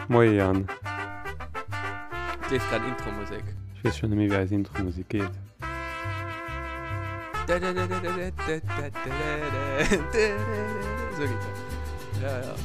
Moie Yann. Et leeft grad Intro-Musek. Ech weess schon net méi wéi eis Intro-Musek geet. Sou geet dat. Ja, ja.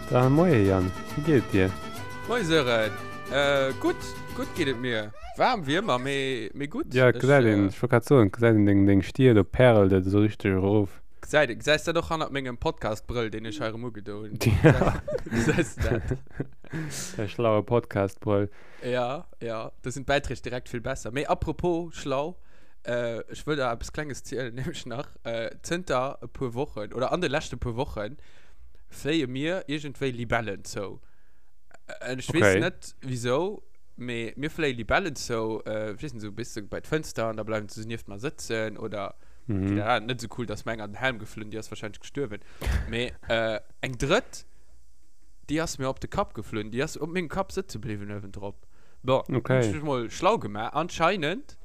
Da moie Yann, wéi geet et dir? Moie Sören, gutt, gutt geet et mir. Waarm wéi ëmmer, mee, mee gutt. Jo, et gesäit een, ech wollt grad soen, et gesäit een deng, deng Stier, do pärelt et esou richteg erof. Gesäit een, gesäis dat och hannert mengem Podcast-Brëll, deen ech hei erëm ugedo hunn? Ja. Gesäis de dat? Däi schlaue Podcast-Brëll. Ja, ja, do sinn d'Bäiträg direkt vill besser. Mee apropos schlau, ech wëll der eppes Klenges zielen, nämlech nach, zënter e puer Wochen, oder an de leschte puer Wochen, fléie mir iergendwéi Libellen zou. An ech weess net wisou, mee mir fléie Libellen zou, ech weess net, esou bis bei d'Fënster an da bleiwen se sou nieft mer sëtzen oder. Mhm. Ja, net sou cool, dass mir eng an den Helm geflunn, déi ass wahrscheinlech gestuerwen. Mee äh, eng drëtt, déi ass mir op de Kapp geflunn, déi ass op mengem Kapp sëtze bliwwen uewendrop. Bon, Okay. hunn ech mech mol schlau gemaach. Anscheinend,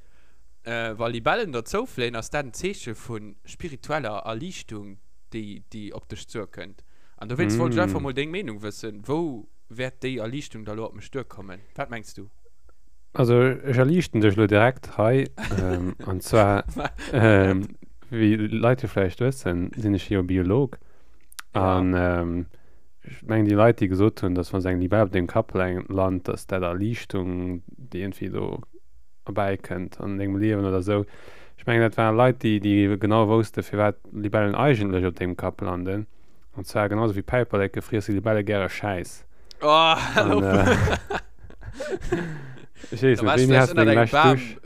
äh, wa Libellen der zoufléien, ass dat en Zeeche vu spiritueller Erliichtung, déi, déi op dech zuerkënnt. An dowéinst wollt ech einfach Mm. mol deng Meenung wëssen. Wou wäert déi Erliichtung da lo op mech duerkommen? Wat mengs du? Also ech erliichten dech lo direkt hei, an zwar, wéi Leit jo vläicht wëssen, sinn ech jo Biolog. An ech mengen déi Leit déi gesot hunn, datt wa se eng Libell op dengem Kapp lant, datt dat Erliichtung déi iergendwéi do erbäi kënnt an dengem Liewen oder esou, ech mengen dat ware Leit déi déi genau wousste firwat Libellen eigentlech op dengem Kapp landen. An zwar genau esou wéi Päiperleke friesse Libelle gäre Schäiss. Oh, hal op! Ech weess Da net, war ech wéini vläicht has du ënnert deng engem lescht Bam Dusch?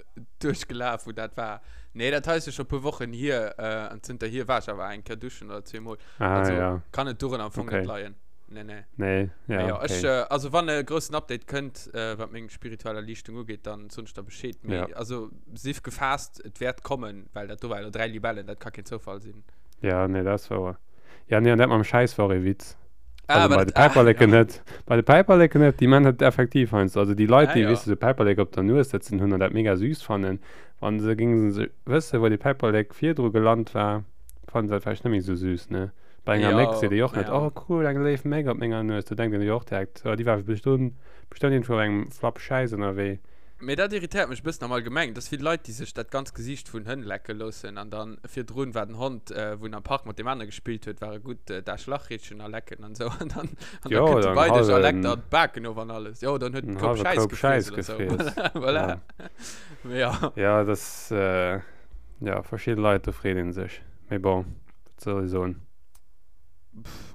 duerchgelaf, wou dat war. Nee, dat hei ass jo scho e puer Wochen hier, an zënterhier war ech awer eng Kéier duschen oder zweemol. Ah, Also ja. kann et dorun am Fong Okay. net leien. Nee, nee. Nee, Mee ja, jo, ech, okay. also wann e groussen Update kënnt, wat meng spirituell Erliichtung ugeet, dann soen ech der Bescheed. Mee Ja. also sief gefaasst, et wäert kommen, well dat do war elo 3 Libellen, dat ka keen Zoufall sinn. Ja, nee, dat ass wouer. Ja, nee, an dat mam Schäiss war och ee Witz. Ah, Also war bei de dat, ah, Päiperleken ja. net. Bei de Päiperleken net, déi man dat effektiv heiansdo. Also déi Leit, Ah, déi, ja. weess de, sou Päiperlek op der Nues sëtzen hunn an dat mega süß fannen, wann se géingen se wëssen, wou dee Päiperlek virdru gelant war, fannen se dat vläicht net méi sou süß, ne? Bei enger Méck Ja, seet ee jo och net, ja. Oh cool, eng léif Méck op menger Nues. Do denkt een jo och direkt, oh, déi war bestëmmt, bestëmmt iergendwou op engem Flapp Schäiss ënnerwee. Mee dat irritéiert mech e bëssen am Allgemengen, dass vill Leit, déi sech dat ganz Gesiicht vun Hënn lecke loossen an dann virdrun war den Hond, wou en am Park mat deem anere gespillt huet, war e gutt Dag Lach richen a lecken an esou an dann, an dann Jo, kënnt e oder en bei dech a leckt halwen, der d'Baken of an alles. Jo, dann huet en en Koup halwe Schäiss Koup gefriess Schäiss oder esou. gefriess. Voilà. Ja. Mee jo. Ja, das, ja, verschidde Leit, do freet ee sech. Mee bon, wat soll ee soen? Pff,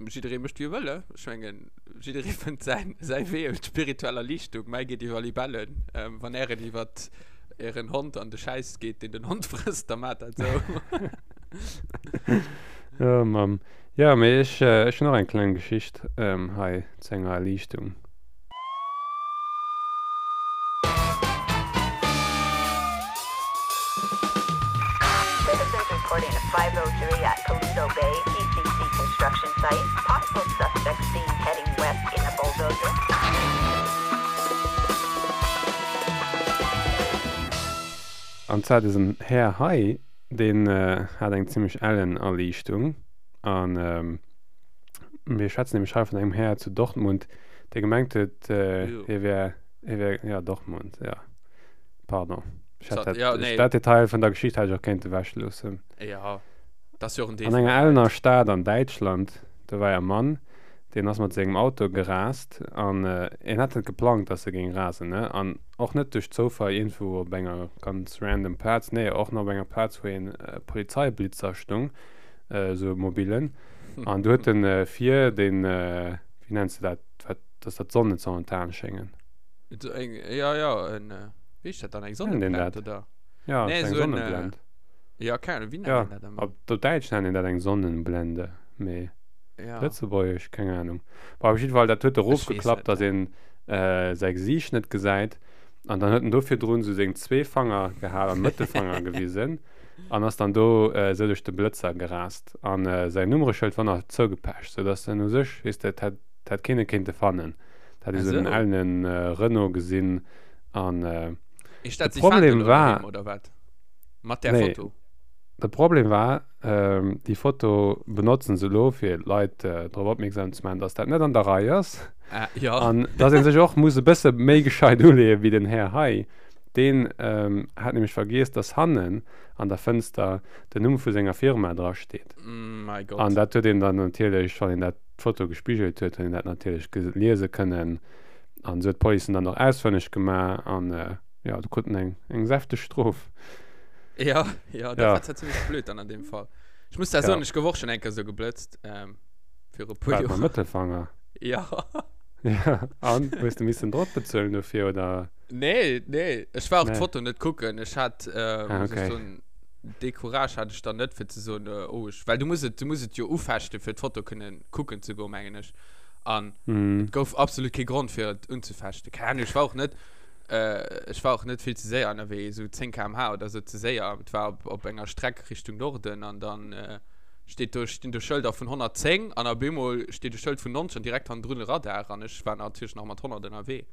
jidderee mécht wéi e wëll, he? Ech mengen. Jidderee fënnt säin, säi Wee un d'spirituell Erliichtung. Mäi geet iwwer Libellen. Ähm, wann ären iwwer ären Hond an de Schäiss geet, deen den Hond frësst, da maacht dat sou. Oh Mamm. Ja, mee ech, ech hunn och eng kleng Geschicht ähm, hei zu enger Erliichtung. Citizens reporting a 503 at Paleto Bay PCC construction site. Possible suspect seen heading west in a bulldozer. An zwar dësen Här hei, deen hat eng zimmlech ellen Erliichtung. An mir schwätzen nämlech hei vun engem Här zu Dortmund, dee gemengt huet, hie wär, hie wär, ja Dortmund, ja. Pardon. Ech hätt dat, Ja, nee. dat Detail vun der Geschicht hätt ech och kéinte wechloossen. Ja, dat ass jo och en Deel An vun enger der ellener Welt. Stad an Däitschland, do war e Mann, Deen ass mat sengem Auto gerast an en hat net geplangt, dass e géing rasen, ne? An och net duerch Zoufall iergendwou op enger ganz random Plaz, nee, och nach op enger Plaz, wou een Polizeiblitzer stung, esou e mobilen. An du huet en vir den, wéi nenns de dat, wat, dass dat d'Sonn net soll an d'Aen schéngen? Esou eng, jo, jo, en, wéi heescht dat dann, eng Sonneblend, oder? Ja, nee, eng Sonnenblend. Jo, keng Ahnung, wéi nennt een dat ëmmer? Op Däitsch nennt een dat eng Sonnenblende, mee. Ja. Lëtzebuergesch, keng Ahnung. Bon, op jidde Fall, dat huet erofgeklappt, dass een säi Gesiicht net gesäit. An dann huet en do virdrun esou seng zwee Fanger gehal an Mëttelfanger gewisen an ass dann do esou duerch de Blëtzer gerast. An säin Nummereschëld war nach zougepecht, sou dass en u sech, weess de, et hätt, et hätt keen e kéinte fannen. Et hätt ee sou en ellene Renault gesinn an de Problem war. Oder wat? Mat där Foto? De Problem war, déi Foto benotzen se elo fir d'Leit drop opmierksam ze maachen, dass dat net an der Rei ass. Ah, ja. An dass ee sech och muss e bësse méi gescheit uleeë wéi den Här hei. Deen hat nämlech vergiess, dass hannen an der Fënster den Numm vu senger Firma dra steet. Mäi Gott. An dat huet een dann natierlech, wann een dat d'Foto gespigelt huet, huet een dat natierlech liese kënnen. An esou huet d'Police en dann och ausfënneg gemaach an. Ja, du krut en eng, eng säfteg Strof. Ja, ja, dat ja. war zwar ziemlich blöd dann an dem Fall. Ich muss da ja. sagen, ich gouf och schon eng Kéier so geblëtzt. Ähm, fir e puer Joer. Mëttelfanger. Ja. Ja, an? Hues du missen drop bezuelen dofir, oder? Nee, nee. Ech war och nee. d'Foto net kucken. Ech hat, äh, ah, muss okay. ich soen, dee Courage hat ech dann net, fir ze soen, äh, oh, ech, well du muss et, du muss et jo ufechten, fir d'Foto kënnen kucken ze goen, mengen ech. An mm. et gouf absolut kee Grond, fir et unzefechten. Keine Ahnung, ech war och net, Ech war och net vill ze séier ënnerwee, esou 10 km/h oder esou ze séier. Et war op, op enger Streck Richtung Norden an dann steet do, stinn do Schëlder vun 110 an op eemol steet e Schëld vun 90 an direkt hannendrun e Radar an ech war natierlech nach mat 100 ënnerwee.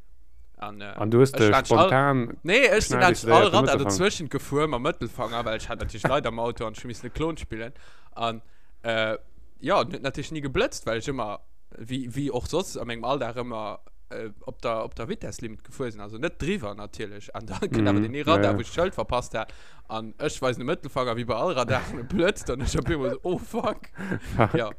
An, An du hues ech dech laanscht all, spontan nee, ech sinn schnell laanscht all decidéiert, de Radar Mëttelfanger. dozwëschent gefuer mam Mëttelfanger, well ech hat natierlech Leit am Auto an ech hu missen e Klon spillen. An jo, en huet natierlech ni geblëtzt, well ech ëmmer, wéi, wéi och soss a mengem Alldag ëmmer, op der, op der Vitesslimit gefuer sinn, also net driwwer natierlech. An da kënnt awer deen ee Radar, wou ech d'Schëld verpasst hat. An ech weisen de Mëttelfanger, wéi bei all Radaren, e blëtzt an ech op eemol esou, oh fuck. Fuck. Ja.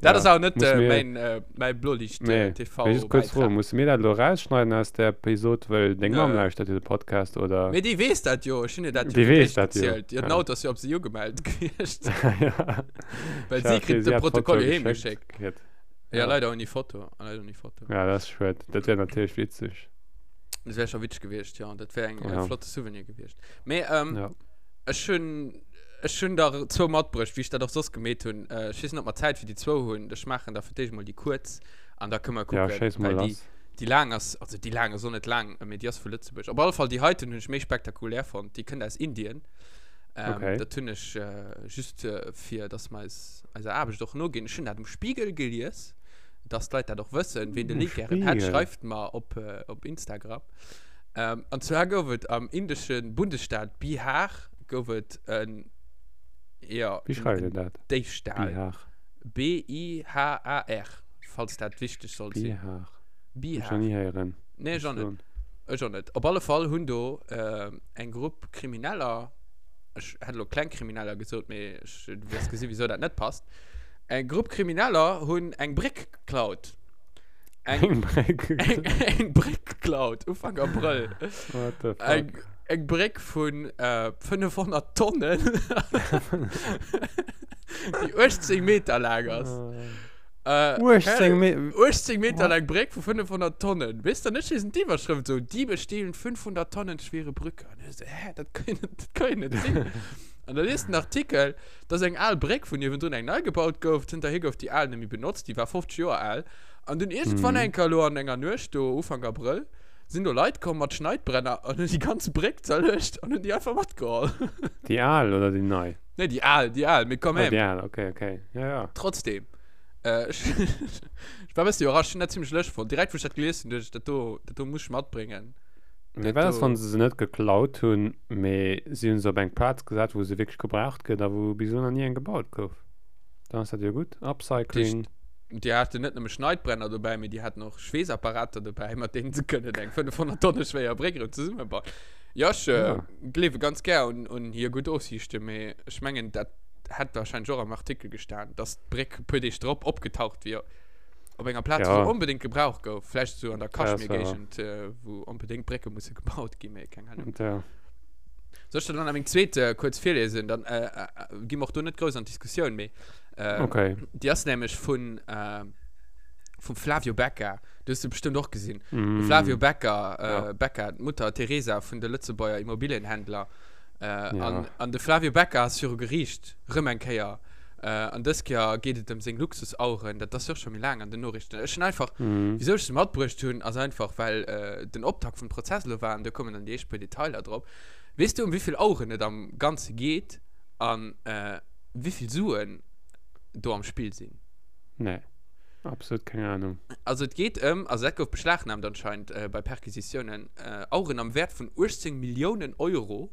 Dat ass Ja. awer net Muss äh, mir, mäin, äh, mäi Blolicht nee, äh, mee just kuerz Fro, TV-Bäitrag. musse mir dat elo rausschneiden aus der Episod, wëll deng Mamm Nö. lauschtert jo de Podcast, oder? Mee déi weess dat jo, ech hunn hir dat jo Déi fir weess d'éischt dat jo, gezielt. Hiren ja. Auto ass jo op si ugemellt gewiescht. Ja. Well Ech si hat fir kritt si de hat d'Foto Protokoll jo heem geschéckt geschéckt. kritt. Ja, Ja. leider ouni Foto. Leider ouni Foto. Ja, dat ass schued. Dat wär natierlech witzeg. Dat wär scho witzeg gewiescht, ja. Dat wär eng Ja. äh, flotte Souvenir gewiescht. Mee, ähm, Ja. ech hunn, ech hunn der zwou matbruecht, wéi ech dat och soss gemeet hunn. Äh, ech weess net, ob mer Zäit fir déi zwou hunn. Ech maachen da fir d'éischt mol déi kuerz an da kënne mer Ja, kucken, schéiss mol well déi, lass. déi laang ass, also déi laang ass och net laang, mee déi ass vu Lëtzebuerg. Op alle Fall, déi heiten hunn ech méi spektakulär fonnt. Déi kënnt aus Indien. Ähm, Okay. Dat hunn ech äh, just äh, fir, dass mer eis eiser Aarbecht och noginn. Ech hunn dat um Spiegel gelies, dass d'Leit dat och wëssen. Ween de Um Link gären hätt, Spiegel? schreift mer op, äh, op Instagram. Ähm, an zwar gouf et am indesche Bundesstaat Bihar gouf et en, ja, Wéi en, schreift en een dat? Déifstahl. Bihar. B-I-H-A-R, falls dat wichteg sollt sinn. Bihar. Hunn ech nach Bihar. ni héieren. Nee, Muss ech och net. soen. Ech och net. Op alle Fall hunn do äh, eng Grupp Krimineller, ech hätt elo kleng Krimineller gesot, mee ech, du wäers gesi wisou dat net passt, eng Grupp Krimineller hunn eng Bréck geklaut. Eng, Eng Bréck eng, eng Bréck geklaut, Ufank Abrëll. What the fuck? Eng, eng Bréck vun äh, 500 Tonnen, déi 18 Meter laang ass. Äh, 18 Meter? 18 Meter laang Bréck vu 500 Tonnen. Weess de, ech lesen d'Iwwerschrëft esou, Diebe stehlen 500 Tonnen schwere Brücke. An ech esou, hä, dat kann jo net, dat kann jo net sinn. An da liest den Artikel, dass eng al Bréck, wou niewendrun eng nei gebaut gouf, zënterhier gouf déi al net méi benotzt, déi war 50 Joer al. An dunn iergendwann eng Kéier elo an enger Nuecht do, Ufank Abrëll, sinn do Leit komm mat Schneidbrenner an hunn déi ganz Bréck zerluecht an hunn déi einfach matgeholl. Déi al oder déi nei? Nee, déi al, déi al, mee quand Ah, même. déi al, okay, okay. Ja, ja. Trotzdem. Äh, ech, ech war e bëssi iwwerrascht, ech hunn dat zimmlech lëschteg fonnt. Direkt, wou ech dat gelies hunn, duecht ech, dat do, dat do muss ech matbréngen. Mee wat ass, wann se se net geklaut hunn, mee si hunn se op eng Plaz gesat, wou se wierklech gebraucht gëtt a wou bis elo nach ni eng gebaut gouf? Dann ass dat jo gutt. Upcycling. Déi haten net nëmme Schneidbrenner dobäi, mee déi haten och Schweessapparater dobäi, mat deenen se kënnen eng 500 Tonne schwéier Bréck erëm zesummebauen. Jo, ech gleewe ganz gär un, un hir gutt Aussiichten, mee ech mengen, dat hätt warscheinlech och am Artikel gestan, dass d'Bréck e puer Deeg drop opgetaucht wier. Op enger Plaz, wou se onbedéngt gebraucht gouf. Vläicht esou an der Kaschmir-Géigend, wou onbedéngt Brécke musse gebaut ginn, mee keng Ahnung. Ja. Soll ech der dann nach meng zweet kuerz virlesen? Dann gi mer och do net grouss an d'Diskussioun, mee Okay. déi ass nämlech vun, vum Flavio Becca. Du hues se bestëmmt och gesinn. De Flavio Becca, Ja. Becca, d'Mutter Teresa vun de Lëtzebuerger Immobilienhändler. Ja. An, an de Flavio Becca ass viru Geriicht, rëm eng Kéier. An dës Kéier geet et ëm seng Luxusaueren. Dat ass jo och scho méi laang an den Noriichten. Ech hunn einfach, wisou ech se matbruecht hunn, ass einfach, well den Optakt vum Prozess elo war an do kommen dann déi éischt puer Detailer drop. Weess du, ëm wéi vill Aueren et am Ganze geet a wéi vill Suen do am Spill sinn? Nee, absolut keng Ahnung. Also et geet ëm, also dat gouf beschlagnahmt anscheinend bei Perquisitiounen, Aueren am Wäert vun 18 Milliounen Euro.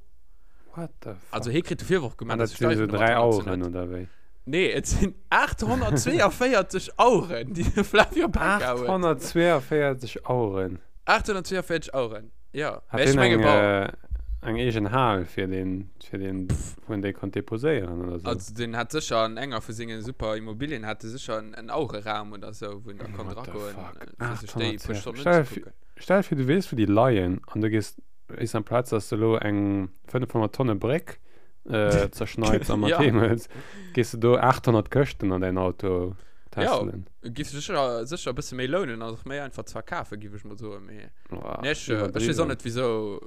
What the fuck? Also hie kritt de Virworf gemaach, An dass dat e sinn esou Steieren 3 domat hannerzoen Aueren huet. oder wéi? Nee, et sinn 842 Aueren, déi de Flavio Becca huet. 842 Aueren? 842 Aueren, ja. Hat Mä ech deen menge eng, bon. äh, eng eegen Hal fir deen, fir deen, wou en déi konnt deposéieren oder sou? Also deen hat sécher an enger vu senge super Immobilien hat e sécher en, en Aureraum oder sou, wou en da konnt What the eragoen, fuck? fir sech déi e puer 842. Stonnen Stell dir vir, unzekucken. stell dir vir, du weess wou déi leien an du gees Is amplaz dass de elo eng 500 Tonne Bréck zerschneits a mat heem hëls, gees de do 800 Këschten an däin Auto tässelen. Jo, giff sech sécher, sécher e bësse méi lounen an och méi einfach ze verkafen, giff ech mol soen. Mee nee, ech, ech weess och net, wisou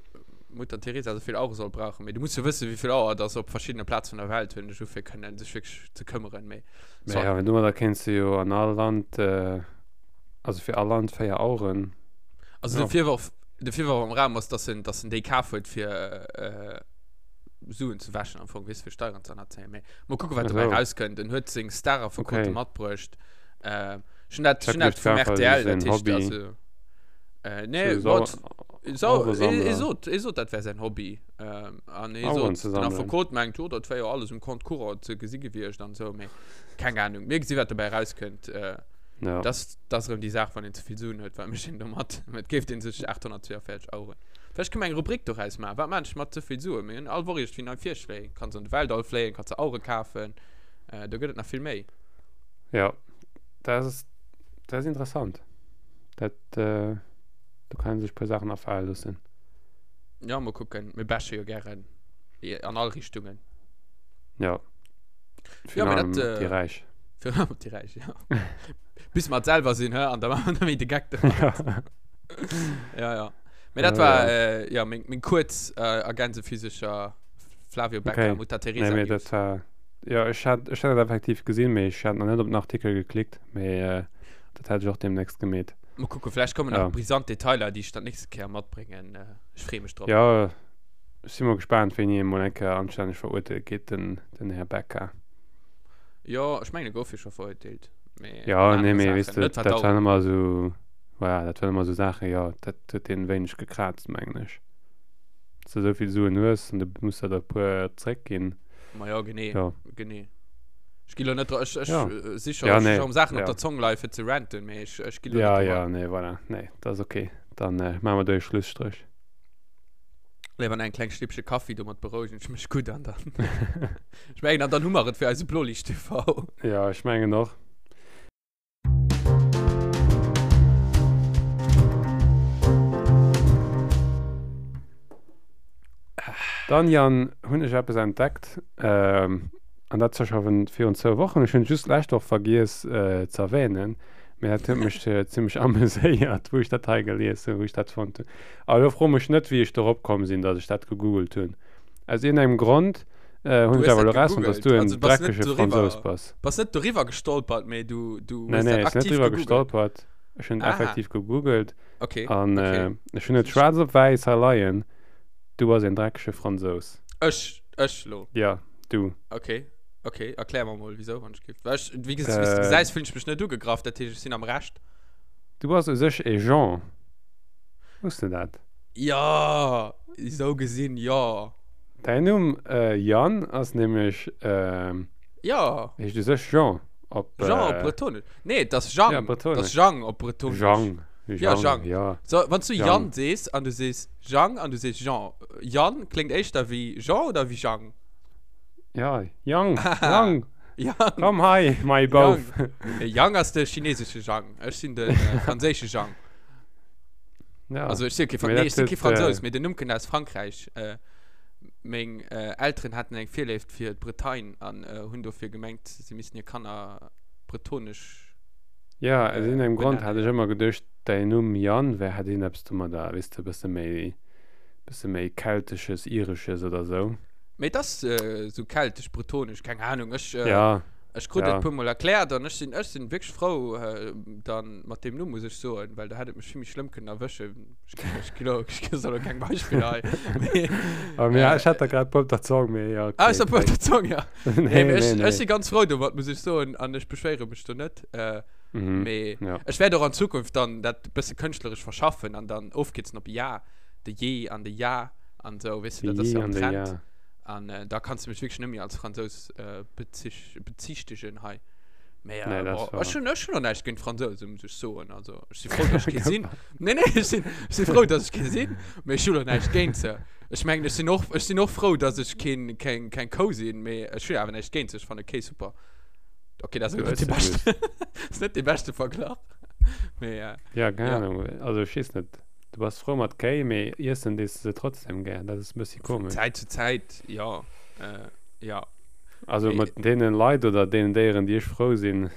Mutter Teresa esou vill Auere soll brauchen. Mee du muss jo wëssen, wéi vill Auer dass op verschiddene Plaze vun der Welt hunn, sech ufir kënnen sech wierklech ze këmmeren. Mee Mee jo, mee domadder kéints de jo an all Land, also fir all Land 4 Aueren. Also de Virworf, de Virworf am Raum ass, dass en, dass en déi kaf huet, fir äh, Suen ze wäschen am Fong, weess fir Steieren ze hannerzéien. Mee mol kucke wat dobäi Ach so. rauskënnt. En huet seng Staraffekote Okay. matbruecht. Äh, ech hunn dat, Ich ech hab hunn dat geduecht, vum kaf also RTL, säin dat heescht Hobby. also. Äh, nee, So, wat, Sau- so, Aueresammler. e sot, e sot, dat wär säin Hobby. Ähm, an e Aueren sot, ze den sammelen. Affekot mengt, jo, dat wär jo alles um Compte courant ze gesi gewiescht an esou, mee keng Ahnung. Mir gesi wat dobäi rauskënnt. Äh, Ja. Das, das ass erëm déi Saach, wann een ze vill Suen huet, wat mécht een domat? Et keeft een sech 842 Aueren. Vläicht kënne mer eng Rubrik doraus maachen. Wat maan ech mat ze vill Suen? Mir hunn all Woch iergendwéi nei Virschléi. Kanns an de Weltall fléien, kanns de Auere kafen. Äh, do gëtt et nach vill méi. Ja, dat ass, dat ass interessant. Dat, äh, do kann ee sech e puer Saachen afale loossen. Ja, mol kucken. Mir bashe jo gären an all Richtungen. Ja. Ja, mee Virun dat, allem déi äh, Räich. Virun allem déi Räich, ja. Bis mer et selwer sinn, hä? An da maache mer méi de Geck domat. Ja, ja. Mee dat war, äh, ja, meng, meng kuerz äh, a gänsefüsecher Flavio Becca, Okay. Mutter Teresa Nee, mee News. dat war, ja, ech hat, ech hat dat effektiv gesinn, mee ech hat nach net op den Artikel geklickt, mee äh, dat hätt ech och deemnächst gemeet. Mol kucken, vläicht kommen Ja. nach brisant Detailer, déi ech dann d'nächste Kéier matbréngen. Äh, ech freeë mech drop. Ja, ech si mol gespaant, wéini e mol eng Kéier anstänneg verurteelt gétt, den, den Här Becca. Jo, ech mengen, e gouf jo scho verurteelt. Mee Ja, ëm nee, anere mee weess Saachen. de, Net wat dat waren d'Aueren. ëmmer esou, voilà, dat waren ëmmer esou Saachen, jo, dat huet deen wéineg gekraazt, mengen ech. Dass de esou vill Suen hues an du muss der der e puer zréckginn. Ma jo, genee, Jo. genee. Ech gi lo net dra, ech, ech Ja. si scho, Ja, ech hu nee, scho erëm Saachen op ja. der Zong leie fir ze ranten, mee ech, ech gi lo Ja, net ja, dran. nee, voilà, nee, dat ass okay. Dann maache mer do ee Schlusstréch. Léiwer nach eng kleng Schlippche Kaffi, domat berouegen ech mech gutt an dann, ech mengen, an dann hu mer et fir eise Bloliicht TV. Ja, ech mengen och. Dann, Yann, hunn ech eppes entdeckt, an dat zwar scho virun zwou Wochen, ech hunn et just d'lescht Woch vergiess ze erwähnen, mee dat huet mech zimmlech ameséiert, wou ech dat hei gelies hunn, wou ech dat fonnt hunn. A elo fro mech net, wéi ech dorop komm sinn, datt ech dat gegoogelt hunn. Aus iergendengem Grond hunn Du ech hues awer dat elo rausfonnt, datt gegoogelt, du en also bass net dreckege doriwwer, Fransous bass. bass net doriwwer gestolpert, mee du, du Nee, hues nee, dat ech sinn net aktiv driwwer gegoogelt. gestolpert. Ech hunn Aha. effektiv gegoogelt Okay, an okay. ech hunn et schwaarz op wäiss hei leien, Du bass een dreckege Fransous. Ech, ech lo? Ja, du. Okay, okay, erklär mer mol wisou, wann ech giff. Well ech, wéi ges, wéi s de gesäis, fillen ech mech net ugegraff, dat heescht, ech sinn am Recht. Du bass u sech ee Jean. Wusst de dat? Jo, esou gesinn, jo. Däin Numm Yann ass nämlech, Jo. heescht u sech Jean op. Jean op Bretonesch. Nee, et ass Jang. Ja, Bretonesch. Et ass Jang op Bretonesch. Jang. Ja, Jang. Ja. So, wann s du Jang. Yann sees an du sees Jang an du sees Jean. Yann kléngt éischter wéi Jean oder wéi Jang? Ja, Jang, Jang. Yang. Komm hei, mei Bouf. Yang. Yang ass de chinesesche Zhang. Ech sinn de franséische Zhang. Ja. Also ech si kee, Mee nee, ech dat si kee huet, Fransous, äh, mee den Numm kënnt aus Frankräich. Äh, meng äh, Elteren haten eng Virléift fir d'Bretagne an äh, hunn dofir gemengt, si missten hir Kanner bretonesch Ja, aus äh, iergendengem Grond hat benennen. ech ëmmer geduecht, däin Numm Yann wär, hätt iergendeppes domadder, weess de, e bësse méi, bësse méi Keltesches, Iresches oder sou. Mee et ass äh, sou keltesch, bretonesch, keng Ahnung. Ech, äh, Ja, ech krut et ja. e puer Mol erkläert an ech sinn, ech sinn wierklech frou äh, dann mat deem Numm, muss ech soen, well da hätt et mech vill méi schlëmm kënnen erwëschen. Ech, ech, ginn elo, ech soll elo keng Beispiller hei. Mee, Aber mir, äh, ech hat der grad Pop der Zong, mee ja, Ah, okay. ist der Pop der Zong, ja. Nee, Nee, mee nee, ech, nee. ech si ganz frou domat, muss ech soen, an ech beschwéiere mech do net. Äh, Mhm, mee ja. ech wäert och an Zukunft dann dat e bësse kënschtleresch verschaffen an dann ofkierzen op Ja, de Je an de Ja an esou, weess de, De dat ass Je jo am an de Trend. Ja. An äh, da kanns du mech wierklech net méi als Fransous äh, bezich bezichtegen hei. Mee äh, Nee, dat ass bon, ech wahr. hunn ech hunn och näischt géint Fransousen, muss ech soen. Also ech si frou, dass ech kee sinn. Nee, nee, ech sinn, ech si frou, dass ech kee sinn, mee ech hunn och näischt géint se. Ech mengen, ech sinn och, ech sinn och frou, dass ech keen, keng, keng Kou sinn, mee ech hunn awer näischt géint se. Ech fanne Kéi super. Okay, dat ass Du net ëss de se beschte, just. ass net de beschte Verglach. Mee äh, Ja, keng ja. Ahnung. Also ech weess net. Du bass frou mat Kéi, mee iessen dees de se trotzdem gär. Dat ass e bëssi Vun komesch. Zäit zu Zäit, jo. Äh, ja. Also Mee mat deenen Leit oder deenen Déieren, déi ech frou sinn,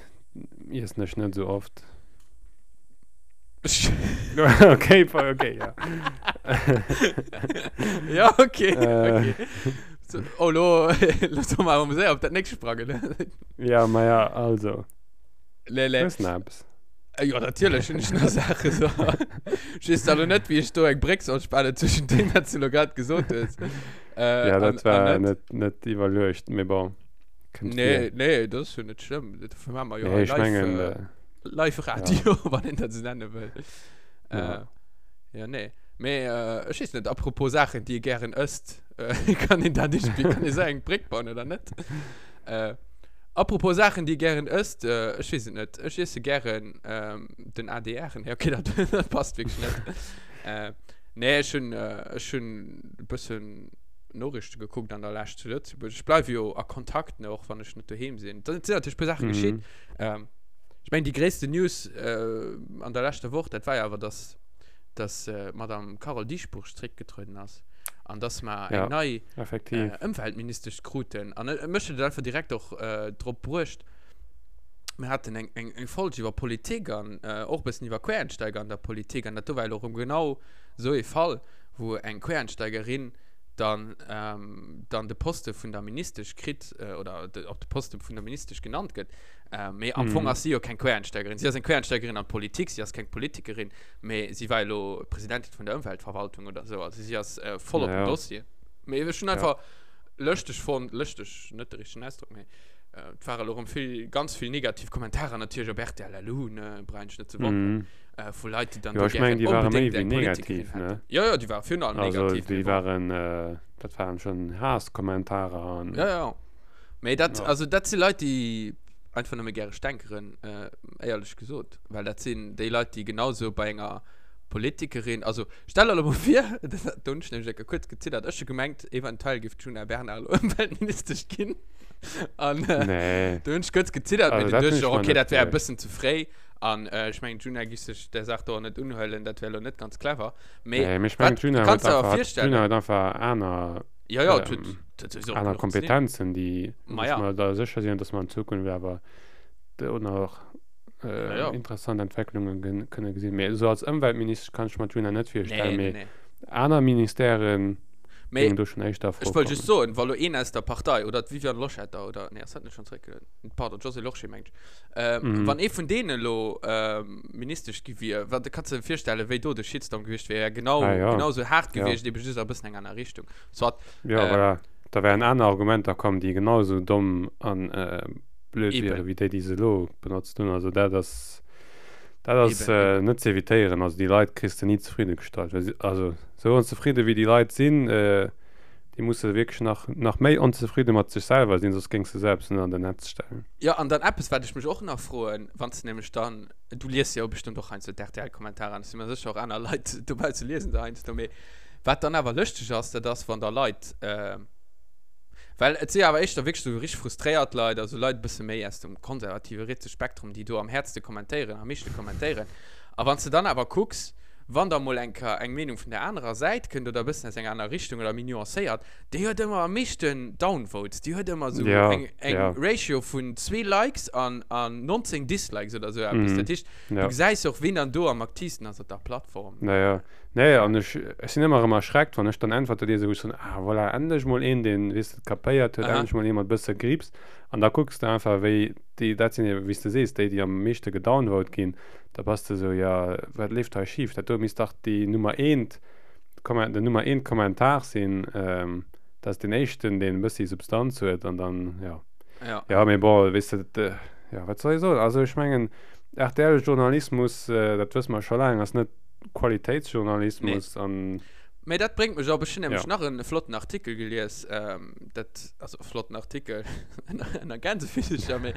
iessen ech net esou oft. Okay, okay, ja. Ja, okay, Äh. okay. So, oh, lo, lo soll mer awer séier op dat nächst sprangen, ne? Ja, ma ja, also. Nee, nee. Hues nach eppes? Äh, Jo, natierlech hunn ech nach Saachen. So. Ech weess zwar lo net, wéi ech do eng Bréck soll spanen zwëschen deem, wat s du lo grad gesot hues. Äh, Ja, an, dat an war net. net, net iwwerluecht, mee bon, kënnt Nee, vir. nee, dat ass jo net schlëmm. Dofir maache mer jo Nee, hei ech live, mengen, äh, äh, live ja. Radio, wann een dat esou nenne wëll. Äh, Ja. ja, nee. Mee, äh, ech weess net, apropos Saachen, déi ee gären ësst, äh, kann een dat irgendwie, kann ee sou eng Bréck bauen oder net? Äh, apropos Saachen, déi ee gären ësst, äh, ech weess et net. Ech iesse gären, ähm, den ADR. Nee, okay, dat, dat passt wierklech net. Äh, nee, ech hunn, äh, ech hunn e bëssen Noriichte gekuckt an der Lescht zu Lëtzebuerg. Ech bleiwe jo a Kontakt, ne, och wann ech net doheem sinn. Da sinn natierlech e puer Saache geschitt. Mhm. Ähm, ech mengen, déi gréissten News, äh, an der leschter Woch, dat war jo awer, dass, dass äh, d'Madame Carole Dieschbourg zréckgetrueden ass an dass mer eng Ja, nei effektiv. äh, Ëmweltministesch kruten. An äh, mech huet et einfach direkt och äh, drop bruecht, mir haten eng, eng, eng Folg iwwer Politik an äh, och e bëssen iwwer Quereinsteiger an der Politik an dat do war elo erëm genau esou ee Fall, wou eng Quereinsteigerin dann, ähm, dann de Poste vun der Ministesch kritt äh, oder de, op de Poste vun der Ministesch genannt gëtt. Äh, mee am Fong Mhm. ass si jo keng Quereinsteigerin. Si ass eng Quereinsteigerin an d'Politik, si ass keng Politikerin, mee si war elo Presidentin vun der Ëmweltverwaltung oder sou. Also si ass äh, voll op dem Ja. Dossier. Mee ech hunn Ja. einfach lëschteg fonnt, lëschteg, net de richtegen Ausdrock, mee äh, et ware elo erëm vill, ganz vill negativ Kommentarer natierlech op RTL LU, ne, brauch ech net ze wonneren, Mhm. äh, vu Leit, déi dann Jo, do ech mengen, gären déi ware méi onbedéngt wéi eng Politikerin negativ, ne? hätten. Jo, jo, déi ware virun allem Also negativ, mee déi bon. waren, äh, dat waren schonn Haasskommentarer an. Ja, ja. Mee dat, Ja. also dat si Leit, déi einfach nëmme gäre stänkeren, äh, éierlech gesot. Well dat sinn déi Leit, déi genauso bei enger Politikerin, also stell der elo mol vir, dat, do hunn ech nämlech eng Kéier kuerz geziddert, ech hu gemengt, eventuell géif d'Djuna Bernard elo Ëmweltministesch ginn. An äh, Nee. do hunn ech kuerz geziddert, mee Also dunn dat duecht hunn ech ech och, mer okay, net dat wär e geduecht. bëssen ze fréi. An äh, ech mengen, d'Djuna géif sech där Saach do och net unhuelen, dat wär elo net ganz clever. Mee Nee, mee ech mengen, wat, d'Djuna huet kanns der awer einfach, d'Djuna virstellen, huet einfach aner, ja, ja, d'huet, ähm, d'huet souwisou och aner genuch ze dinn. Kompetenzen, déi, Ma wou ech ja. mer da sécher sinn, dass mer an Zukunft awer do nach Ja, äh, ja. interessant Entwécklunge gen- kënne gesinn. Mee esou als Ëmweltministesch kann ech mer d'Djuna net virstellen, Nee, nee, mee nee. aner Ministèren Mee géingen do schonn éischter a ech Fro wollt just kommen. soen, wa lo een aus der Partei, oder d'Viviane Loschetter, oder, nee, ass dat net schonn zeréckgelueden? Pardon, d'Josée Lorsché mengt ech. Ähm, Mhm. Wann ee vun deenen elo ähm, Ministesch gi wier, wat, kanns du dir virstellen, wéi do de Shitstorm gewiescht wier? Ja, genau, Ah, ja. genau sou haart Ja. gewiescht, ebe just a bëssen eng aner Richtung. Soit, Ja, äh, voilà. Da wären aner Argumenter komm, déi genau esou domm an äh, blöd Eben. wieren, wéi déi, déi se elo benotzt hunn. Also dat ass, dat ass Eben, äh, eben. net ze evitéieren. Also déi Leit kriss de ni zefridde gestallt. Well si, also sou onzefridde wéi déi Leit sinn, äh, Déi musse wierklech nach, nach méi onzefridde mat sech selwer sinn, soss géings de se eppes net an den Netz stellen. Jo, an dann eppes, wat ech mech och nach froen, wann s de nämlech dann, du lies jo bestëmmt och heiansdo d'RTL-Kommentarer an et si mer sécher och aner Leit dobausse liesen se heiansdo, mee wat dann awer lëschteg ass, dat ass, wann da Leit. Well et si awer éischter wierklech sou richteg frustréiert Leit, also Leit e bësse méi aus dem konservative rietse Spektrum, déi do am häertste kommentéieren, am meeschte kommentéieren. A wann s de dann awer kucks, wann da mol eng Kéier eng Meenung vun der anerer Säit kënnt oder e bëssen aus enger anerer Richtung oder méi nuancéiert, déi huet ëmmer am meeschten Downvotes, déi huet ëmmer sou Ja, eng, eng ja. Ratio vun zwee Likes an, an 19 Dislikes oder sou eppes. Mhm. Dat heescht, du Ja. gesäis och, ween dann do am aktiivsten ass op der Plattform. Ja, ja. Nee, an ech, ech sinn ëmmer erëm erschreckt, wann ech dann Äntwerte liesen, wou ech soen, ah voilà, endlech mol een, deen, weess de, et kapéiert huet, Aha. endlech mol ee mat bësse Grips. An da kucks de einfach, wéi déi, dat sinn eben, wéi s de sees, déi, déi am meeschte gedownvote ginn, da bass de esou, jo, wat leeft hei schif? Dat do misst dach déi Nummer eent, Kommen, den Nummer eent Kommentar sinn, dat ass deen éischten, deen e bëssi Substanz huet, an dann, jo. Ja. Jo, mee bon, weess de, dat, jo, wat soll ee soen? Also ech mengen, RTL-Journalismus, dat wësse mer scho laang, ass net Qualitéitsjournalismus Nee. an. Mee dat bréngt mech op, ech hunn nämlech Ja. nach en flotten Artikel gelies, ähm, dat, also e flotten Artikel, ënner Gänsefüßecher, mee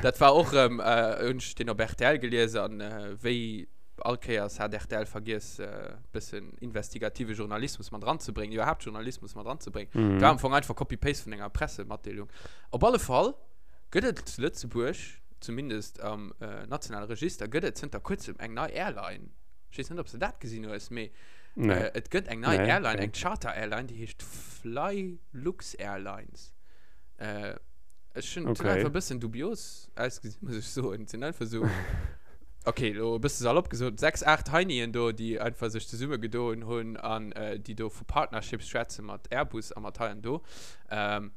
dat war och erëm, äh, hunn ech deen op rtl gelies an äh, wéi all Kéiers hat rtl vergiess, äh, bëssen investigative Journalismus mat eranzebréngen, iwwerhaapt Journalismus mat eranzebréngen. Mhm. Dat war am Fong einfach Copy-Paste vun enger Pressematdeelung. Op alle Fall gëtt et zu Lëtzebuerg, zumindest am äh, nationale Register, gëtt et zënter kuerzem eng nei Airline. Ech weess net, ob s de dat gesinn hues, mee Nee. äh, et gëtt eng nei Nee, Airline, okay. eng Charter-Airline, déi heescht Flylux Airlines. Äh, ech hunn okay. Okay. einfach e bëssen dubios ausgesinn, muss ech soen. Et sinn einfach so, okay, lo e bësse salopp gesot, 6, 8 Heinien do, déi einfach sech zesummegedoen hunn an äh, déi do vu Partnerships schwätze mat Airbus a mat hei an do. Ähm,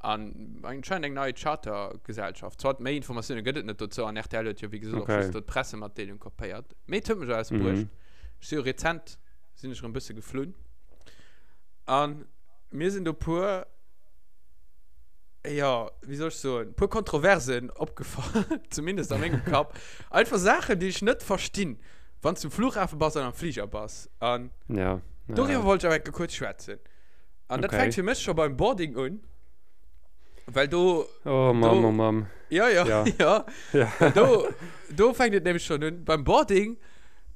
An anscheinend eng nei Chartergesellschaft. Zwar méi Informatioune gëtt et net dozou an rtl huet jo wéi gesot och Okay. just do d'Pressematdeelung kopéiert. Mee et huet mech eppes bruecht. Mhm. Ech si jo rezent sinn ech erëm bësse geflunn an mir sinn do puer, jo, wéi soll ech soen, puer Kontroversen opgefall, zumindest a mengem Kapp. Einfach Saachen, déi ech net verstinn, wann s du um Flughafen bass an am Fliger bass. An Ja, ja, doriwwer ja. wollt ech awer eng Kéier kuerz schwätzen. An dat Okay. fänkt fir mech scho beim Boarding un, well do, Oh Mann, do, oh Mann. ja, ja, Ja. ja, Ja. well do, do fänkt et nämlech schonn un. Beim Boarding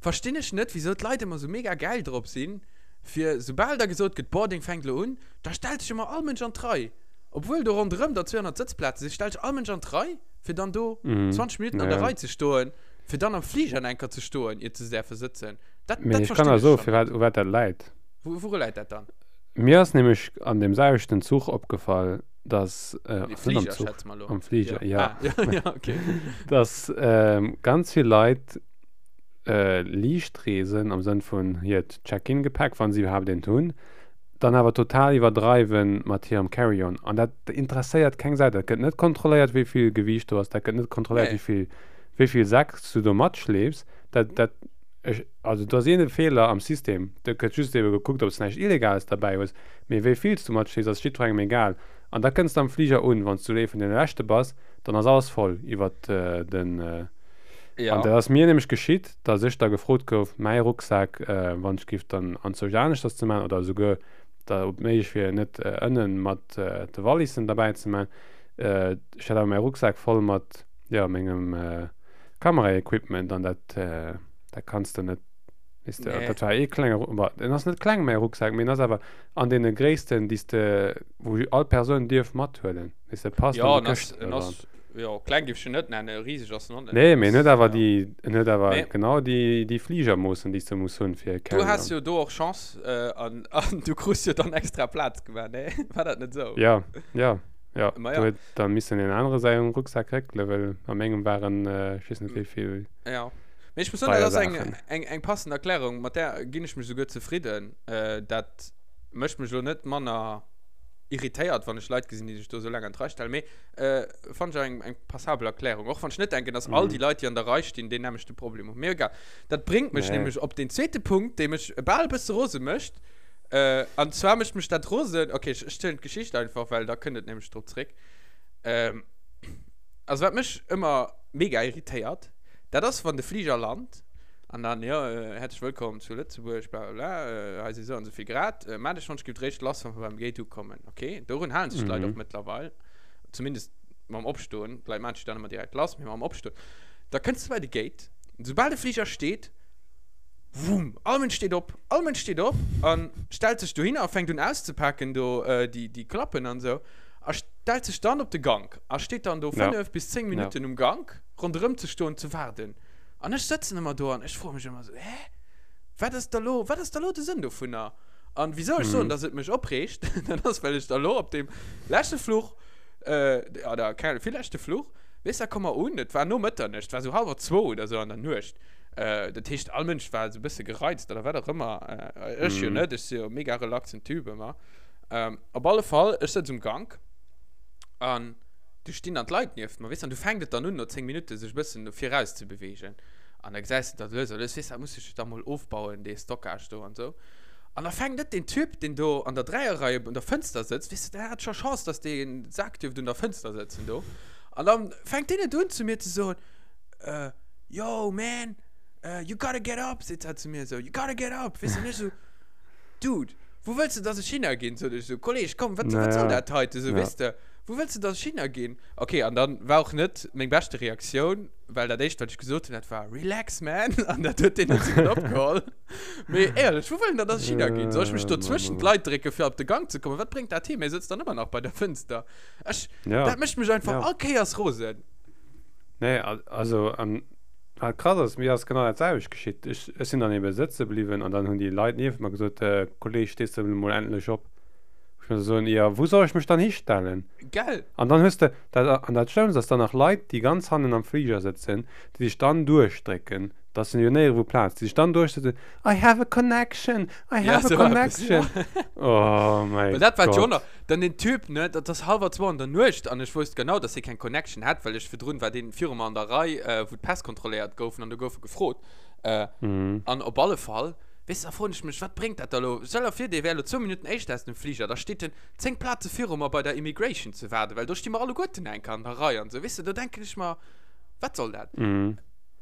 verstinn ech net, wisou d'Leit ëmmer sou mega gäil drop sinn, fir soubal da gesot gëtt, Boarding fänkt elo un, da stellt sech ëmmer all Mënsch an d'Rei. Obwuel do ronderëm der 200 Sëtzplaze sinn, stellt sech all Mënsch an d'Rei, fir dann do Mhm. 20 Minutten an der Ja. Rei ze stoen, fir dann am Fliger enker ze stoen, iert se däerfe sëtzen. Dat, Mee dat ech kann verstinn der ech soen, schonn firwat, net. u wat dat läit. Wouru läit dat dann? Mir ass nämlech an deem selwechten Zuch opgefall, dass, äh, Nee, also net am Fliger, Zuch, schätze mer elo. am Fliger, Ja. ja. Ah, ja, ja, okay. Dass ähm, ganz vill Leit äh, liicht reesen, am Sënn vun hiert Check-in-Gepäck, wann se iwwerhaapt eent hunn, dann awer total iwwerdreiwe mat hirem Carry-on. An dat interesséiert keng Sau. Dat gëtt net kontrolléiert, wéi vill Gewiicht do ass. Dat gëtt net kontrolléiert, Nee. wéi vill, wéi vill Säck s du do matschleefs. Dat, dat Ech, also do ass een Feeler am System, do gëtt just ebe gekuckt, ob s de näischt Illegales derbäi hues, mee wéi vill s du matschleefs, ass jiddwerengem egal. An da kënns de am Fliger un, wann s du ee vun deene leschte bass, dann ass alles voll iwwert den. Ja. An dat ass mir nämlech geschitt, datt ech da gefrot gouf, mäi Rucksak, wann ech giff dann anzwousch aneschters ze maachen oder esouguer da ob méiglech wier, net ënnen mat de Wallissen derbäi ze maachen. Ech hat awer mäi Rucksak voll mat, jo, mengem Kameraequipment an dat. Dat kanns de net, weess de, Nee. dat war ee klenge, ma en ass net kleng mäi Rucksak, mee en ass awer an deene gréissten, déi s de, wou all Persoun dierf mathuelen, weess de, passt Ja, an en déi ass, Këscht en dran. ass, jo, kleng géif ech en net nennen, riseg ass en och net. Nee, mee en huet Ass, awer ja. déi, en huet awer Mee genau déi, déi Fligermoossen, déi s de muss hunn fir e du has Carry-on. jo do och Chance, an, an du krus jo dann extra Plaz gemaach, nee? War dat net esou? Ja, ja. Ja, Ma do ja. huet da missen een anere säi Rucksak réckele well a mengem waren ech weess net wéi vill Ja. Mee ech muss soen, dat deier ass eng, Saachen. eng, eng passend Erklärung, mat där ginn ech mech souguer zefridden. Dat mécht mech elo net manner irritéiert, wann ech Leit gesinn, déi sech do esou laang an d'Rei stellen. Mee fannen ech eng, eng passabel Erklärung. Och wann ech net denken, dass all déi Leit, déi an der Rei stinn, deen nämmlechte Problem hunn. Mee egal. Dat bréngt mech Nee. nämlech op deen zweete Punkt, dee mech bal e bësse rose mécht. Äh, an zwar mécht mech dat rosen. Okay, ech, ech zielen d'Geschicht einfach, well da kënnt et nämlech drop zréck. Ähm, also wat mech ëmmer mega irritéiert, dat ass, wann de Fliger lant an dann, jo, äh, häerzlech wëllkomm zu Lëtzebuerg, bla bla bla, äh, hei si sou an sou vill Grad, äh, maacht iech schonn, ech giff réischt lass, wann mer beim Gate ukommen. Okay, dorun halen sech d'Leit Mhm. och mëttlerweil, zumindest mam Opstoen. D'Leit maachen sech dann ëmmer direkt lass, mee mam Opstoen. Da kënns de bei de Gate, soubal de Fliger steet, Wumm, all Mënsch steet op, all Mënsch steet op an stellt sech dohinner a fänkt un auszepaken do déi, déi Klappen an esou. A stellt sech dann op de Gank a steet dann do 5 bis 10 Minutten um Gank ronderëm ze stoen, ze waarden. An ech sëtzen ëmmer do an ech froe mech ëmmer esou, Hä? Wat ass da lo, wat ass da lo de Sënn dovunner? An wisou ech soen, dass et mech opreegt, dat ass, well ech da lo op deem leschte Fluch, oder keng Ahnung, virleschte Fluch, weess, da komme mer un, et war no Mëtternuecht, et war esou hallwer zwou oder esou an der Nuecht. Dat heescht, all Mënsch war esou e bësse gereizt oder wat och ëmmer. Ech jo net, ech si jo e mega relaxen Typ ëmmer. Op alle Fall, ech sëtz um Gank an du stinn dann d'Leit nieft mer, weess, an du fänkt et dann un, no 10 Minutte sech e bëssen no viraus ze beweegen. An da gesäis de dat lues a lues, weess, dat muss sech da mol ofbauen, dee Stockage do an esou. An da fänkt et deen Typ, deen do an der Dräierrei un der Fënster sëtzt, weess de, deen hat scho Chance, dass dee Sak dierft un der Fënster sëtzen do. An da fänkt deen et un zu mir ze soen, Yo, man, you gotta get up, seet hat zu mir esou, you gotta get up, weess de. An ech esou, Dude, wou wëlls de, dass ech hinnerginn? Sot ech esou, Kolleg, komm, wat, wat soll dat heite, esou, weess de? Wou wëlls de, dass ech hinnerginn? Ok, an dann war och net meng beschte Reaktioun, well dat éischt, wat ech gesot hunn, dat war, Relax, man! An dat huet deen net esou gutt opgeholl. Mee éierlech, wou wëll en dann, dass ech hinnerginn? Soll ech mech do zwëschen d'Leit drécken, fir op de Gank ze kommen? Wat bréngt dat him? Hie sëtzt dann ëmmer nach bei der Fënster. Ech, dat mécht mech einfach all Kéiers rosen. Nee, also, an Wat krass ass, mir ass genau dat selwecht geschitt. Ech, ech sinn dann ebe sëtze bliwwen an dann hunn déi Leit nieft mer gesot, Kolleg, stees de emol endlech op? Wou ech mir da soen, jo, wou soll ech mech dann histellen? Gell? An dann hues de, dat, an dat Schlëmmst ass dann nach Leit, déi ganz hannen am Fliger sëtzen, déi sech dann duerchdrécken, dat ass jo néierewou Plaz, déi sech dann duerchdrécken, I have a connection, I Ja, have a sou eppes, connection. ja. Oh mäi Well dat war Gott. d'Joner. Dann den Typ, ne, dat ass hallwer zwou an der Nuecht an ech wousst genau, dass hie keng Connection hat, well ech virdrun war deen viru mer an der Rei, wou d'Päss kontrolléiert goufen an do gouf e gefrot. An op alle Fall, weess de, da froen ech mech, wat bréngt dat da lo? Stell der vir, dee wär lo zwou Minutten éischter aus dem Fliger, da steet en 10 Plaze viru mer bei der Immigration ze waarden, well do sti mer alleguerten enk an der Rei an esou, weess de, do denken ech mer, wat soll dat?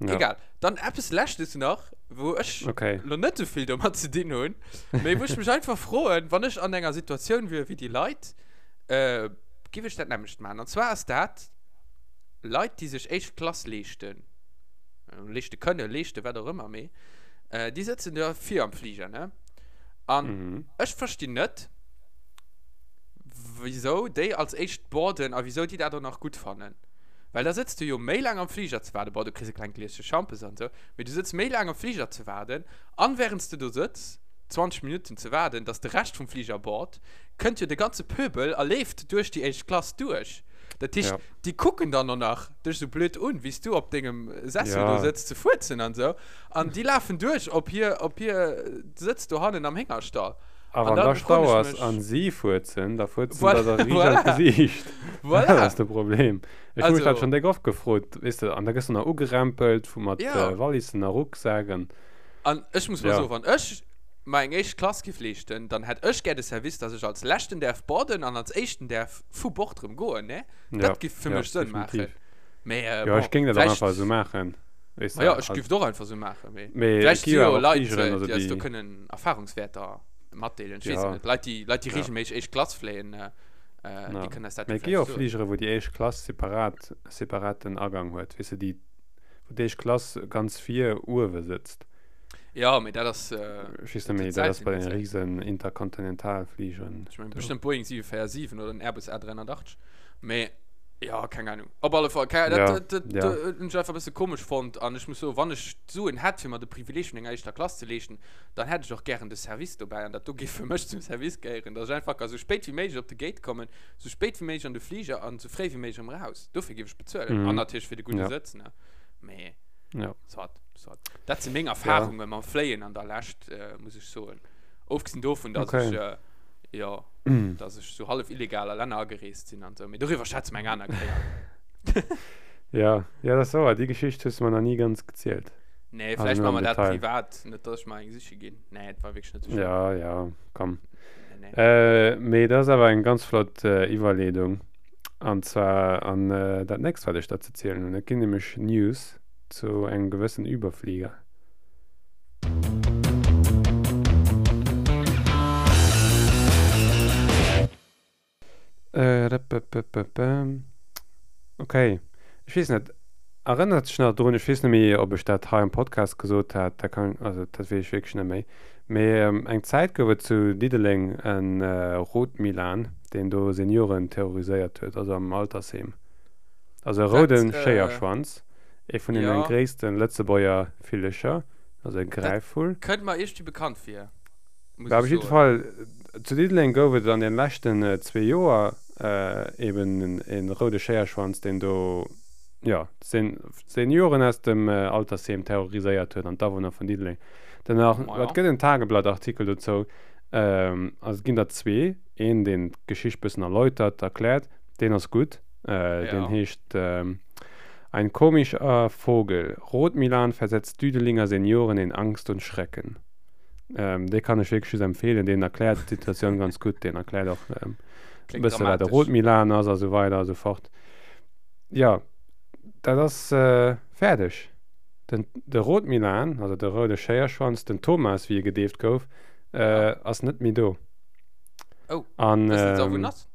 Ja. Egal. Dann eppes Leschtes nach, wou ech okay. lo net sou vill domat ze dinn hunn, mee wou ech mech einfach froen, wann ech an enger Situatioun wier wéi déi Leit, äh, giff ech dat nämmlecht maachen. An zwar ass dat Leit, déi sech éischt Klass leeschten, leeschte kënnen, leeschten, wat och ëmmer, mee äh, déi sëtzen da vir am Fliger, ne? An mhm. ech verstinn net, wisou déi als éischt boarden a wisou déi dat och nach gutt fannen. Well da sëtz du jo méi laang am Fliger ze waarden. Bon, du kriss e klengt Glieschen Schampes an esou, mee du sëtz méi laang am Fliger ze waarden. An wärends de do sëtz, 20 Minutten ze waarden, dass de Rescht vum Fliger board, kënnt jo de ganze Pöbel a leeft duerch déi éischt Klass duerch. Dat heescht, Ja. déi kucken dann och nach dech esou blöd un, wéi s du op dengem Sessel do Ja. sëtz ze fuerzen an esou. An déi lafen duerch op hir, op hir Sëtz dohannen am Héngerstall. A An wann da da froen Stau ech ass mech. an si fuerzen, da fuerzen Voilà, der der riicht an voilà. d'Gesiicht. Voilà. Dat ass de Problem. Ech hu mech dat Also. schonn déck oft gefrot, weess de, an da gëss du nach ugerempelt vu mat Ja. Wallissen a Rucksäck an. An ech muss mol Ja. soen, wann ech mer eng éischt Klass giff leeschten, dann hätt ech gär de Service, dass ech als leschten däerf boarden an als éischten däerf vu Bord rëm goen, ne? Ja, Dat giff fir ja, mech Sënn maachen. definitiv. Mee, Jo, bon, ech géing dat och vläicht. einfach esou maachen, weess Ma jo, de, ech als. giff et och einfach esou maachen, mee Mee et vläicht gi si jo jo awer och Leit, Fligeren, also déi eis do déi. kënnen Erfahrungswäerter matdeelen. Ech weess et Ja. net. Leit, déi, Leit, déi Ja. regelméisseg éischt Klass fléien, äh, déi Ja. kënnen eis dat Mee jo et gi jo vläicht soen. Fligere wou déi éischt Klass separat, separaten Agang huet, weess de, déi, wou déi éischt Klass ganz vir uewe sëtzt. Ja, mee dat ass, äh, Ech weess net dat méi, huet dat ass selten bei den net. riesen Interkontinentalfligeren Ech mengen do. bestimmt Boeing 747 oder den Airbus A380. Mee, ja, keng Ahnung. Op alle Fall, keng, dat, Ja, dat, dat, ja. dat hunn ech einfach e bësse komesch fonnt. An ech muss soen, wann ech d'Suen hätt, fir mer de Privileeg vun enger éischter Klass ze leeschten, dann hätt ech och gären de Service dobäi. An dat do géif fir mech zum Service gehéieren, dass ech einfach ka sou spéit wéi méiglech op de Gate kommen, sou spéit wéi méiglech an de Fliger an sou fréi wéi méiglech erëm raus. Dofir géif ech bezuelen. An Mhm. natierlech fir de gudde Ja. Sëtz, ne? Mee Ja. soit, soit. Dat si meng Ja. Erfarunge mam Fléien an der Lescht, muss ech soen. Ofgesinn dovun, dass Okay. ech, jo, dass ech sou hallef illegal a Länner agereest sinn an sou. Mee doriwwer schwätze mer eng aner Kéier. Ja, ja, dat ass wouer. Déi Geschicht hues du mer nach ni ganz gezielt. Nee, Also vläicht net maache am mer dat Detail. privat, net dass ech mer eng siche ginn. Nee, et war wierklech net sou schlëmm. Ja, ja, komm. Nee, nee. Äh, mee dat ass awer eng ganz flott Iwwerleedung. An zwar an dat nächst, wat ech der ze zielen hunn. Et ginn nämlech News zu engem gewëssen Überflieger. Ok, ech weess net, erënnert dech nach drun, ech weess net méi, ob ech dat hei am Podcast gesot hat, dat kann, also dat weess ech wierklech net méi, mee eng Zäit gouf et zu Diddeleng e Rotmilan. deen do Senioren terroriséiert huet, also am Altersheem. Also e roude Schéierschwanz, ee vun deene gréisste Lëtzebuerger Villecher, also e Gräifvull. Dat kënnt mer iergendwéi bekannt vir, muss ech soen. Op jidde Fall, zu Diddeleng gouf et an de leschten zwee Joer eben e roude Schéierschwanz, deen do, jo, d'Senioren aus dem Altersheem terroriséiert huet an d'Awunner vun Diddeleng. Dann nach, et gëtt en Tageblatt-Artikel dozou, also et ginn der zwee, een, deen d'Geschicht bëssen erläutert, erkläert, deen ass gutt, deen heescht Ein komischer Vogel, Rotmilan versetzt Düdelinger Senioren in Angst und Schrecken. Dee kann ech wierklech just empfeelen, deen erkläert d'Situatioun ganz gutt, deen erkläert och e bësse wat e Rotmilan ass a sou weider a sou fort. Jo, dat ass fäerdeg. Den, de Rotmilan, also de roude Schéierschwanz, den Thomas, wéi e gedeeft gouf, äh, ass net méi do. Oh, An, wëssen se auch, wou ähm, en ass?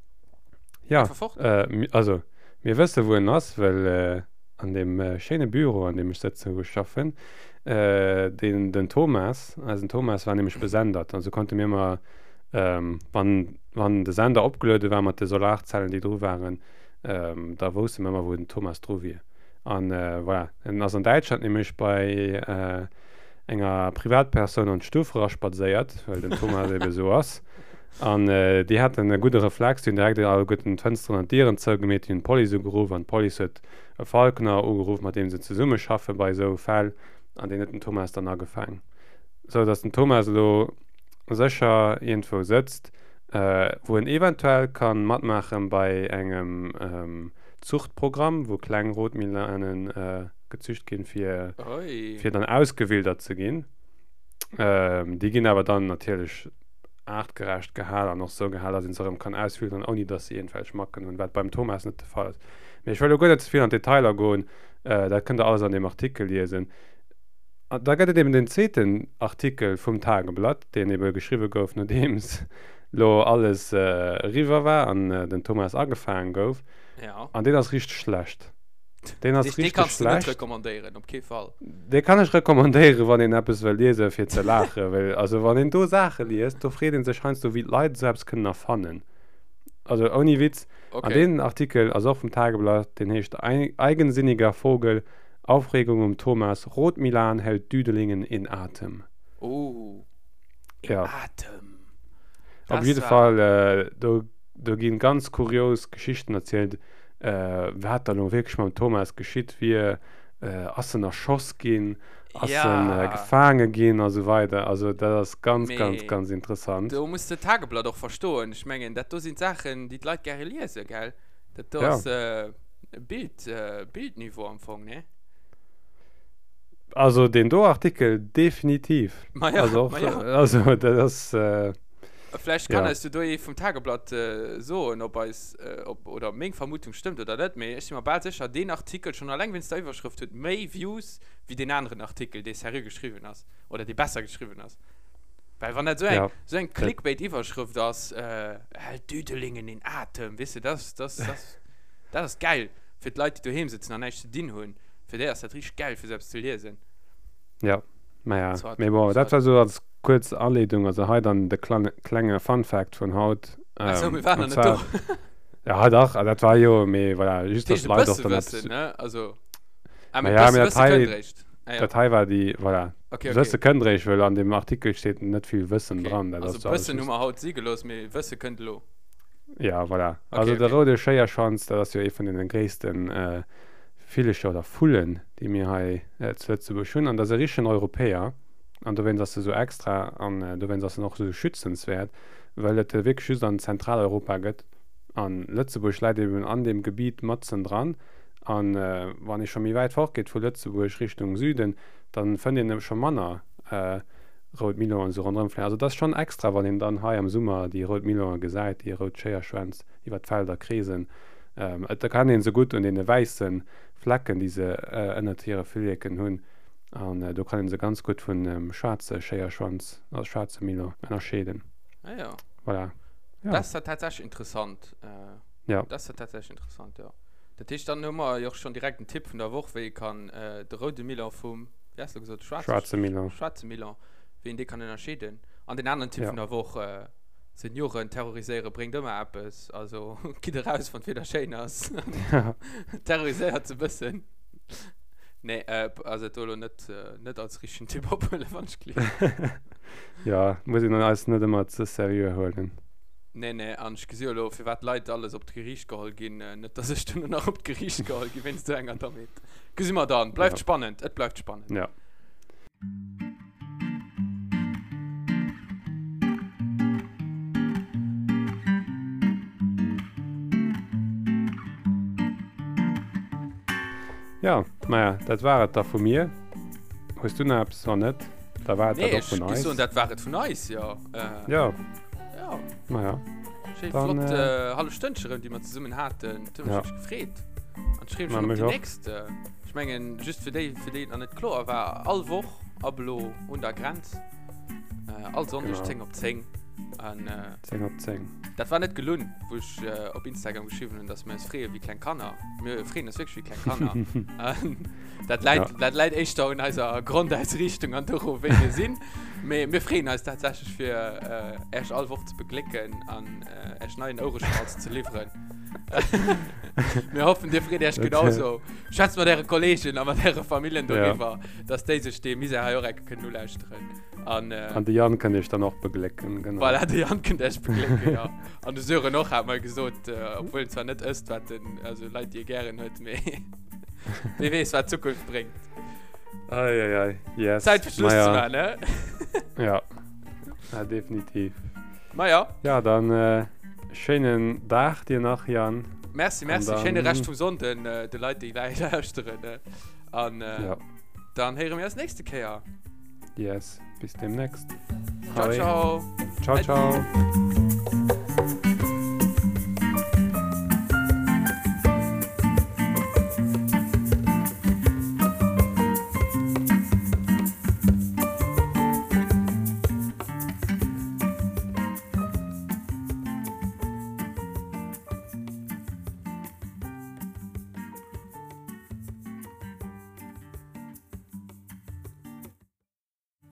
ja, Einfach fort? äh, mi- also, mir wësse wou en ass, well äh, an deem äh, schéine Büro, an deem ech sëtzen, wou ech schaffen, äh, den, den Thomas, eisen Thomas war nämlech besendert. Also konnte mir ëmmer, ähm, wann, wann de Sender opgeluede war mat de Solarzellen, déi dru waren, ähm, da wousste mir ëmmer, wou den Thomas dru wier. An voilà, en ass an Däitschland nämlech bei enger Privatpersoun an d'Stuff eraspadséiert, well den Thomas ebe sou ass. An déi haten e gudde Reflex, déi hunn direkt alleguerten d'Fënsteren an d'Dieren zougemeet, déi hunn d'Police ugeruff an d'Police huet e Falkner ugeruff, mat deem se zesummeschaffe bei esou Fäll, an deen huet den Thomas dann agefaang. Sou datt den Thomas elo sécher iergendwou sëtzt, wou en eventuell ka matmaache bei engem Zuchtprogramm, wou kleng Rotmilanen gezücht ginn, fir, fir dann ausgewildert ze ginn. Déi ginn awer dann natierlech aartgerecht gehal an och sou gehal, datt een se erëm kann auswilderen, ouni datt se iergendwelch Macken hunn, wat beim Thomas net de Fall ass. Mee ech wëll elo guer net ze vill an d'Detailer goen, dat kënnt der alles an deem Artikel liesen. An da gëtt et eben den zweeten Artikel vum Tageblatt, deen ebe geschriwwe gouf, nodeems lo alles eriwwer war an den Thomas agefaangen gouf. Ja. An deen ass richteg schlecht. Deen ass Dee richteg kanns du net schlecht. recommandéieren, op kee Fall. Dee kann ech recommandéieren, wann een eppes wëll liesen, fir ze laachen. Well, also wann een do Saache liest, do freet ee sech heiansdo, wéi d'Leit esou eppes kënnen erfannen. Also ouni Witz. An Okay. deen Artikel ass och vum Tageblatt, deen heescht Eigensinniger Vogel, Aufregung um Thomas, Rotmilan hält Düdelingen in Atem. Oh. In Ja. Atem. Op Das jidde war. Fall, äh, do, do ginn ganz kurios Geschichten erzielt, äh, wat da lo wierklech mam Thomas geschitt wier. Äh, ass en erschoss ginn? Ass en äh, Ja. gefaange ginn? A sou weider. Also dat ass ganz, ganz, Mee ganz interessant. do muss de Tageblatt och verstoen. Ech mengen, dat do sinn d'Saachen, déi d'Leit gäre liesen, gell? Dat do Ja. ass äh, Bild, äh, Bildniveau am Fong, ne? Also deen do Artikel definitiv. Ma ja, also och, ma ja. Also dat ass äh, Vläicht kann ja. eis jo do ee vum Tageblatt äh, soen, ob eis, äh, ob, oder meng Vermutung stëmmt oder net, mee ech si mer bal sécher, deen Artikel, schonn alleng wéinst der Iwwerschrëft, huet méi Views wéi deen aneren Artikel, dee seriö geschriwwen ass, oder dee besser geschriwwen ass. Well wann dat sou eng, Ja, sou eng dat, Clickbait-Iwwerschrëft ass, äh, hält Düdelingen in Atem, weess de, dat, dat, dat, dat ass gäil fir d'Leit, déi doheem sëtzen an näischt ze dinn hunn. Fir déi ass dat richteg gäil, fir sou eppes ze liesen. Ja, maja, Soit, mee bon, dat soit. war sou als kuerz Aleedung, also hei dann de klanne, klenge Fun Fact vun haut. Ach sou, Ähm, mir waren an nach net do. zwar, ja dach, ah, dat war jo, mee voilà, just Dat dass heescht e d'Leit och bësse dann eppes, wëssen, ne? Also, ah, mee maja, bësse mee dat wësse kënnt hei, réischt. Ah ja. dat hei war déi, voilà, Okay, okay. Wësse kënnt réischt, well an deem Artikel steet net vill Wëssen Okay, dran, dat also ass jo alles bëssen hu just mer haut si gelooss, mee Wësse kënnt elo. Ja, voilà. Okay, Also de okay. roude Schéierschwanz, dat ass jo ee vun deene gréissten Villecher oder Vullen, déi mir hei zu Lëtzebuerg hunn. An dat ass e richtegen Europäer. An dowéinst ass e sou extra an dowéinst ass en och sou schützenswäert, well et e wierklech just an Zentraleuropa gëtt. An Lëtzebuerg läit eben an deem Gebiet matzen dran. An wann ee scho méi wäit fortgeet vu Lëtzebuerg Richtung Süden, dann fënnt een scho manner rout Miloen esou ronderëm fléien. Also et ass schonn extra, wann een dann hei am Summer déi rout Miloe gesäit, déi rout Schéierschwänz iwwer d'Felder kreesen. Et erkennt een se gutt un deene wäisse Flecken, déi se ënnert hire Flilleken hunn. An do kann een se ganz gutt vun dem schwaarze Schéierschwanz, also schwaarze Milo, ënnerscheeden. Ah ja. Voilà. Ja. Dat ass da tatsächlech interessant. Ja. Dat ass da tatsächlech interessant, jo. Dat heescht, dann hu mer jo och schonn direkt en Tipp vun der Woch, wéi ee kann de roude Milan vum, wéi has du gesot, schwaarze Milan, schwaarze Milan, wéi een dee kann ënnerscheeden. An den aneren Tipp ja. vun der Woch. Senioren terroriséiere bréngt ëmmer eppes. Also gitt eraus, wann d'Wieder schéin ass. Terroriséiert se e bëssen. Nee, äh, also dat do elo net, net als richtegen Tipp ophuelen, wann ech gleewen. Ja, muss een eis net ëmmer ze seriö huelen. Nee, nee, an ech gesi jo elo, firwat Leit alles op d'Geriicht geholl ginn. Net, dass ech duerno nach op d'Geriicht geholl gi wéinst esou enger Dommheet. Gesi mer dann. Bleift Ja. spannend, et bleift spannend. Ja. Ja, maja, dat war et da vu mir. Hues du nach eppes? Wann net, da war et Nee, dat och ech vun géif soen, eis. dat war et vun eis, jo. Äh, Ja, ja. maja. Schéi Dann, flott äh, äh, hallef Stënnche rëm, déi mer zesummen haten. Et huet mech Ja. wierklech gefreet. An ech freeë mech Ma schonn op mech déi och. nächst. Äh, ech mengen, just fir déi, fir déi et nach net kloer war, all Woch ab elo un der Grenz. Äh, all Sonndeg Genau. 10 op 10. An äh, 10 op 10. dat war net gelunn, wou ech äh, op Instagram geschriwwen hunn, dass mir eis freeë wéi kleng Kanner. Mir freeën eis wierklech wéi kleng Kanner. An dat läit, Ja. dat läit éischter un eiser Grondausriichtung an doru wéi mir sinn. Mee mir freeën eis tatsächlech fir äh, Äech all Woch ze beglécken an äh, Äech neien Ouereschmalz ze liwweren. Mir hoffen, dir freet Äech Dat, äh, genauso. Schwätzt mat äre Kollegen a mat äre Famillen Ja. doriwwer, dass déi sech dee Misär hei och ecke kënnen ulauschteren. An, äh, An de Jan kënnt iech dann och beglécken, genau. Voilà, de Jan kënnt Äech beglécken, ja. An de Sören och, hat mer gesot, äh, obwuel en zwar net ësst, wat den, also Leit, déi e gären huet, mee wie weess, wat d'Zukunft bréngt. Ei, ei, ei. Yes. Zäit fir Schluss Maja. ze maachen, ne? Ja. Ja, definitiv. Maja. Ja, dann äh, schéinen Dag dir nach, Jan. Merci, An merci. dann- Schéine Rescht vum Sonnden, äh, de Leit, déi gläich lauschteren. Ne? An äh, Ja. dann héiere mir eis nächste Kéier. Yes. Bis demnächst. Ciao, Hoi. ciao. Ciao, ciao.